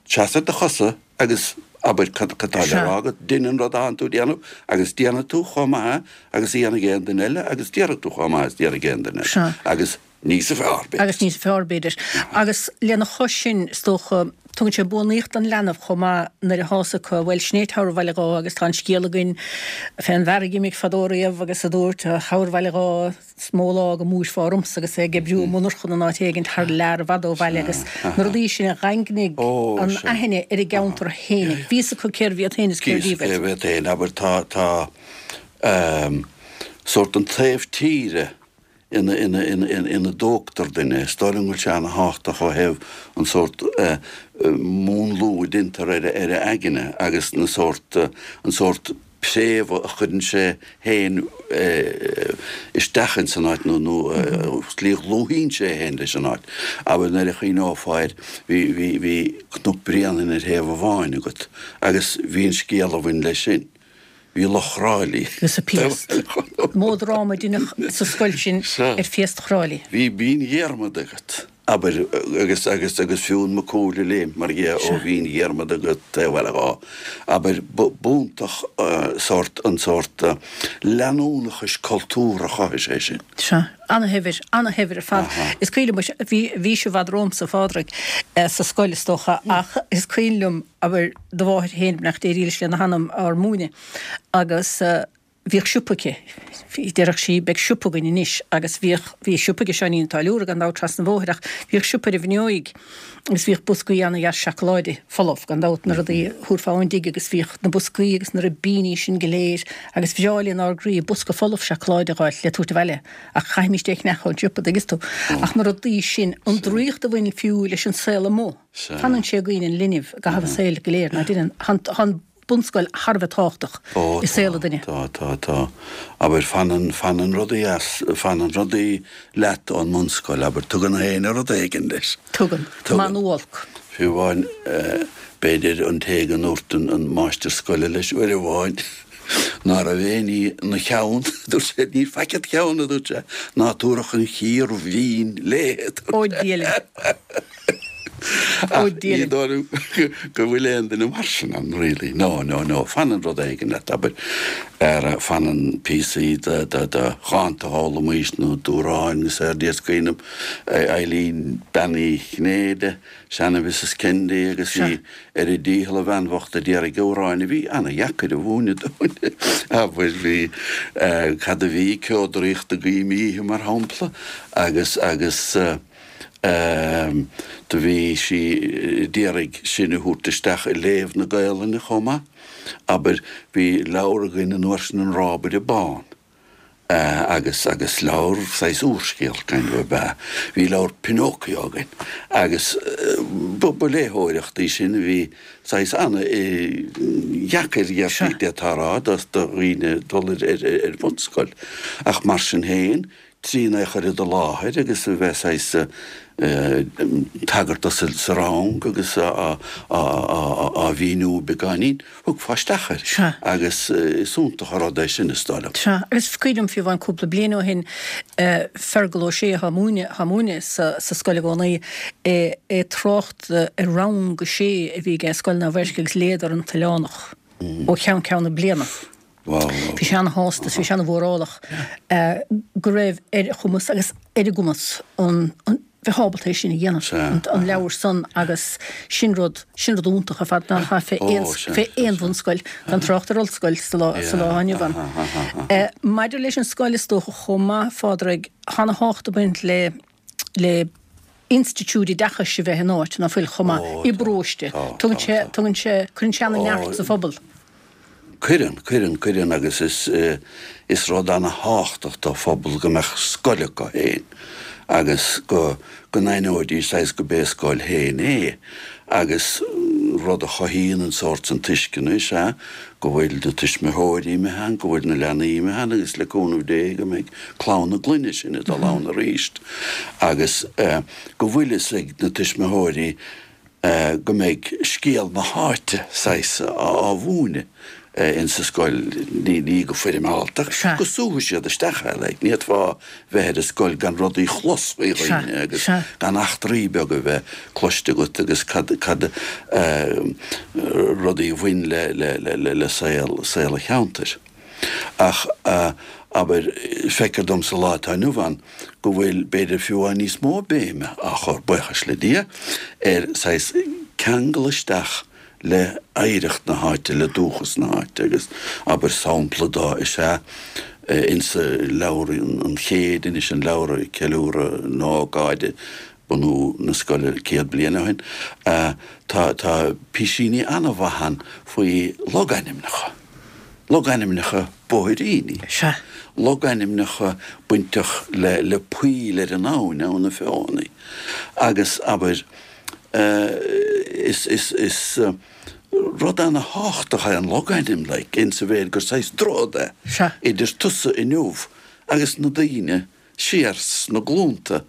seas ar do chosa agus abair cad atá le rá agat, dein an rud atánn tú a déanamh agus déanfaidh tú chomh maith agus a dhéanfaidh aon duine eile agus déarfaidh tú chomh maith is a déarfaidh aon duine eile. Agus. Níosa fearr, b'fhéidir. Agus níosa fearr, b'fhéidir. Agus lena chois sin, is dócha, tugann sé buanaíocht don leanbh chomh maith nuair a thá's acu, bhuel, sin é Tower Bhaile Dháith agus tá an scéal againn fén bhfear a dh'imigh fadó riamh agus a dúirt, Tower Bhaile Dháith, is mó lá go mbuailfeá ormsa agus é ag oibriú i monarchan in áit éigint thar lear i bhfad ó bhaile agus na rudaí sin a dhaingnigh an aithne ar a gceantar féinig. Bhí fhios acu cérbh iad féin is cérbh iad. Cérbh iad féin, abair, tá, tá, sórt an taobh tíre ina, ina, ina, ina dtógtar duine. Is dóigh liom go bhfuil sé ana-thábhachtach ó thaobh an sórt múnlú a deintear ar a, ar a aigne agus na sórt, an sórt préamh a chuireann sé féin isteach ins an áit nó, nó slí a dhlúthaíonn sé é féin leis an áit. Abair nuair a chuimhneofá air, bhí, bhí, bhí Cnoc Bréanainn ar thaobh amháin agat agus bhí an scéal a bhain leis sin. Bhí Loch Chráilí. Agus an phiast. Mó dráma a deineadh sa scoil sin ar phiast Chráilí. Bhí Binn Dhiarmada agat, abair, agus, agus, agus Fionn Mac Cumhaill ag léimt, mar dhea, ó Bhinn Dhiarmada go taobh Bhaile Dháith. Abair, b'iontach sórt, an sórt leanúnachais cultúrtha a chothaigh sé sin. Sea. Ana-shaibhir, ana-shaibhir ar fad. Is cuimhin liom, bhí, bhís i bhfad romhamsa, a Phádraig, sa scoil, is dócha, ach is cuimhin liom, abair, do mháthair féin, beannacht Dé dhílis lena hanam, ár múineadh agus bhíodh siopa aici. Déarfadh sí, beidh siopa againn anois agus bhíodh, bhí siopa ag Seáinín an Táilliúra gan dabht trasna an bhóthair ach bhíodh siopa ar an bhFionnóig agus bhíodh boscaí ana-dheas seacláide folamh gan dabht, na rudaí a thabharfá ón dtigh agus bhíodh na boscaí agus na ribíní sin go léir agus bhreá linn ár gcroí bosca folamh seacláide a dh'fháilt le tabhairt abhaile ach chaithfimíst é a cheannach ón siopa, dtuigeann tú. Ach na rudaí sin, an draíocht a bhain fiú leis an saol amuigh. Fanann sé i gcuimhne an linbh i gcaitheamh a saoil go léir, ná deineann? Tá an bunscoil thar a bheith tábhachtach i saol an duine. Tá, tá, tá. Abair, fanann, fanann rudaí as, fanann rudaí leat ón mbunscoil, abair, tugann éinne rud éigin leis. Tugann. Maith nó olc. Fiú amháin, b'fhéidir, an té go ndúirt an máistir scoile leis uair amháin, Ná raibh aon ní ina cheann, a dúirt sé, níl faic id cheann, a dúirt sé, ná tabharfadh an chíor mhín léi, a dúirt sé. Ó Dia linn. Ó Dia linn. Ní dóigh liom go bhfuil aon duine mar sin ann, really. No, no, no. Fanann rud éigin leat, abair, ar fanann píosaí de dhánta a d'fhoghlaimís nó d'amhráin agus ar Dia is cuimhin liom Eilín Bean Uí Chinnéide, Seana-Mhrs Kennedy agus í ar a dícheall a bhean bhocht a d'iarraidh amhráin a bhí ana-dheacair a mhúineadh dúinn. Abair, bhí, cad a bhí, Ceo Draíochta Guím Oíche mar shampla agus, agus do bhí sí d'iarraidh sinn a thabhairt isteach i léamh na Gaelainne chomh maith. Abair, bhí leabhar againn an uair sin An Rábaire Bán. agus agus leabhar saghas úrscéal kind of ab ea. Bhí leabhar Pinocchio againn agus ba ba léitheoireacht í sin a bhí saghas ana dheacair dhéarfaí d'fhéadfá a rá do do dhaoine dul ar ar ar bhunscoil. Ach mar sin féin trína é a chur i do láthair agus a bheith saghas tagairt do sa rang agus á á mhíniú beagáinín, Thiocfá isteach air. Sea. Agus is iontach an rud é sin, is dóigh liom. Sea. Agus is cuimhin liom fiú amháin cúpla bliain ó shin, Fergal Ó Sé atá ag múineadh, atá ag múineadh sa, sa scoil i gcónaí, é ag trácht ar rang a sé a bhí aige i Scoil Naomh Eirce agus léadar An tOileánach ó cheann ceann na bliana. Bhí sé ana-shásta is bhí sé ana-mhórálach go raibh ar a chumas agus ar a gcumas an, an, bheith ábalta é sin a dhéanamh, an leabhar san agus sin rud, sin rud iontach ar fad nach fé aon, fé aon bhunscoil, gan trácht ar ollscoil sa lá, sa lá inniu ann. Maidir leis an scoil is dócha chomh maith, a Phádraig, tá ana-thábhacht ag baint le, le institiúid oideachais a bheith in áit, ná fuil, chomh maith, i bparóiste. Tugann sé, tugann sé, cuireann sé ana-neart sa phobal. Cuireann, cuireann, cuireann agus is, is rud ana-thábhachtach do phobal go mbeadh scoil acu féin agus go, go n-aithneoidís saghas go b'é a scoil féin é agus rud a chothaíonn an sórt san tuisceana is ea go bhfuil na tuismitheoirí imithe ann, go bhfuil na leanaí imithe ann agus le cúnamh Dé go mbeidh clann na gclainne sin ag dul ann arís agus go bhfuil fhios ag na tuismitheoirí go mbeidh scéal na háite, saghas, á mhúineadh insa scoil, ní go foirmeálta, go súfaidh siad isteach é, like, ní fhéadfá bheith ar an scoil gan rudaí chlos faoi dhaoine agus gan eachtraí beaga a bheith cloiste agat agus cad, cad, rudaí a bhain le, le, le, le saol, saol an cheantair. Ach, abair, feictear dom sa lá atá inniu ann go bhfuil, b'fhéidir fiú amháin níos mó béime á chur, buíochas le Dia, ar saghas ceangal isteach le hoidhreacht na háite, le dúchas na háite agus, abair, sampla dó is ea insa leabhar an chéid anois, an leabhar ag ceiliúradh na hócáide, bunú na scoile 100 bliain ó shin, tá, tá písíní an-mhaith ann faoi logainmneacha, logainmneacha bóithríní, Sea. logainmneacha bainteach le, le poill ar an abhainn, Abhainn na Feothanaí, agus abair, is, is, is rud ana-thábhachtach é an logainm, like, insa mhéid gur saghas droichead é Sea. idir tusa inniu agus na daoine siar sna glúnta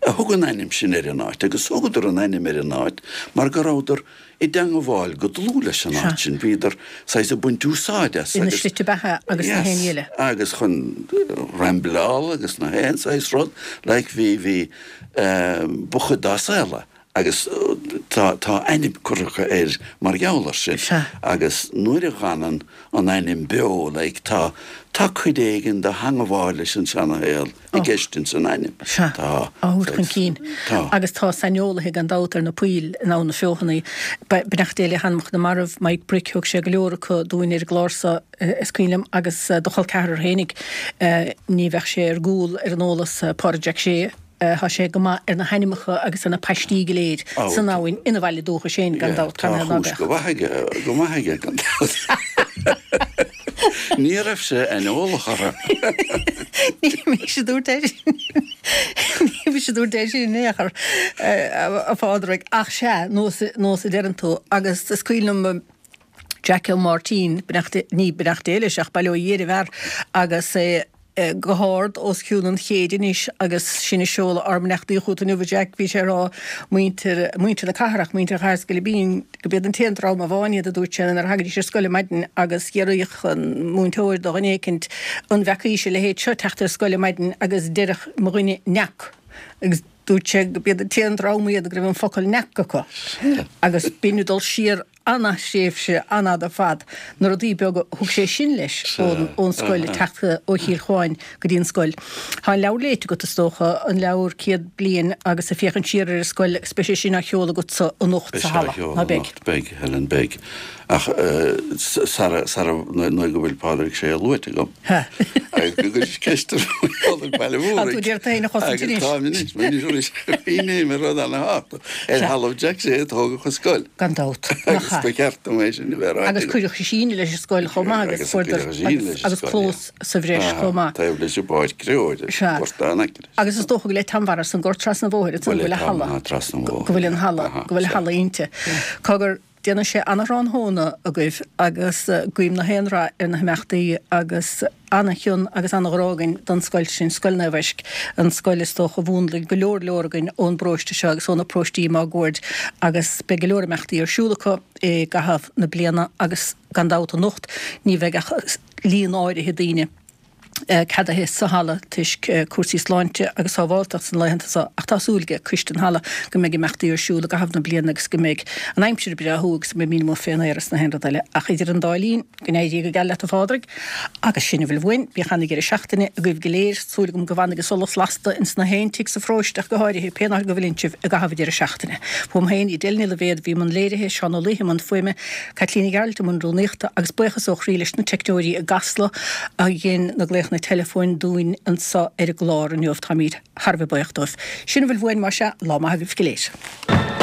a thug an ainm sin ar an áit, agus thugadar an ainm ar an áit mar go rabhadar i dteangabháil go dlúth leis an áit sin, bhíodar saghas ag baint úsáid as Ina agus, slite beatha agus na haon ní eile. agus chun rambleáil agus na haon saghas rud, like bhí, bhí, ba chuid dá saol é. Agus tá, tá ainm curtha acu air mar gheall air sin. Sea. Agus nuair a dh'fhanann an ainm beo, like, tá, tá cuid éigin de theangabháil leis an seana-shaol i gceist ins an ainm. Sea. Tá. Á thabhairt chun cinn. Tá. Agus tá saineolaithe gan dabht ar na poill in Abhainn na Feothanaí. Beannacht Dé le hanamacha na marbh, Mike Brick, thug sé go leor acu dúinn ar an gclár so, is cuimhin liom, agus do chol ceathrar fhéinig, ní bheadh sé ar gcúl ar an eolas, Pádraig Jack Shea, Tá sé go maith ar na hainmneacha agus ar na paistí go léir san abhainn ina bhaile dúchais féin, gan dabht. Tá a chúis go maith aige, go maith aige, gan dabht. Ní raibh sé aineolach orthu. Ní mise a dúirt é sin. Ní mise a dúirt é sin in aon chor, a Phádraig. Ach sea, nós, nós a deireann tú. Agus is cuimhin liom Jack Ó Máirtín, beannacht, ní beannacht Dé leis ach bail ó Dhia ar an bhfear, agus é, go hard os cionn an chéid anois agus sinn ag seoladh ár mbeannachtaí chugat inniu a Jack, bhí sé ag rá muintir, muintir na cathrach, muintir Chathair is Scilipín, go b'iad an t-aon dream amháin iad a dúirt sé nuair a thagaidís ar scoil ar maidin agus d'fhiafraíodh an múinteoir de dhuine éicint an bhfeacaís a leithéid seo teacht ar scoil ar maidin agus deireadh mo dhuine n'fheac agus dúirt sé go b'iad an t-aon dream iad go raibh an focal n'fheac acu agus b'in ag dul siar an-thréimhse an-fhada ar fad. Na rudaí beaga a thug sé sin leis ón scoil, ag teacht ó Chill Chuáin go dtí an scoil. Tá an leabhar léite agat, is dócha, an leabhar 100 Bliain agus ag féachaint siar ar an scoil agus beidh sé sin á sheoladh agatsa anocht sa halla, ná beidh? Beidh, Helen, beidh. Ach sara, sara, nuair go bhfuil Pádraig Sé luaite agam. Agus go gcuirfidh ceist ar Phádraig Baile Mhúraigh. Tá tú ag iarraidh tú féin a chosaint anois. Táim anois, anois, bhí mé ar rud ana-thábhachtach. Ar thalamh Jack Shea a tógadh an scoil. Gan dabht. Agus ba cheart dom é sin a bheith ráite. Agus cuireadh síneadh leis an scoil chomh maith agus fuaireadar agus clós sa bhreis chomh maith. Taobh leis an bpáirc chreabhair, gortán aice leis. Agus is dócha go bhfuil Tamara san gort trasna an bhóthair, go bhfuil a halla, go bhfuil an halla, go bhfuil a halla inti. Cogar, Déanfaidh sé ana-thráthnóna agaibh agus guím na haon rath ar na himeachtaí agus ana-chion agus ana-ghrá againn don scoil sin, Scoil Naomh Eisc, an scoil is dócha a mhúnlaigh go leor leor againn ón bparóiste seo agus ó na paróistí máguaird agus beidh go leor imeachtaí ar siúl acu i gcaitheamh na bliana agus gan dabht anocht ní bheidh ach líon áirithe daoine. ceadaithe sa halla toisc cúrsaí sláinte agus sábháilteachta sna laethanta seo ach tá súil ag coiste an halla go mbeidh imeachtaí ar siúl i gcaitheamh na bliana agus go mbeidh an aimsir breá agus go mbeidh muid amuigh fén aer is na haon rud eile ach idir an dá linn go n-éirí go geal leat a Phádraig agus sin a bhfuil uainn. Bíodh ana-dheireadh seachtaine agaibh go léir. Súil agam go bhfanfaidh an solas lasta ins na haon tigh sa pharóiste ach go háirithe pén áit go bhfuileann sibh i gcaitheamh an deireadh seachtaine. Uaim féin, Edel Ní Loibhéad, a bhí i mbun léirithe, Seán Ó Laoithe i mbun fuaime, Caitlín Ní Ghearailt i mbun rúnaíochta agus buíochas ó chroí leis na teicneoirí i gCasla a dhein na glaochanna teileafóin dúinn anseo ar an gclár inniu. Táimid thar a bheith buíoch dóibh. Sin a bhfuil uainn, más ea, lá maith agaibh go léir.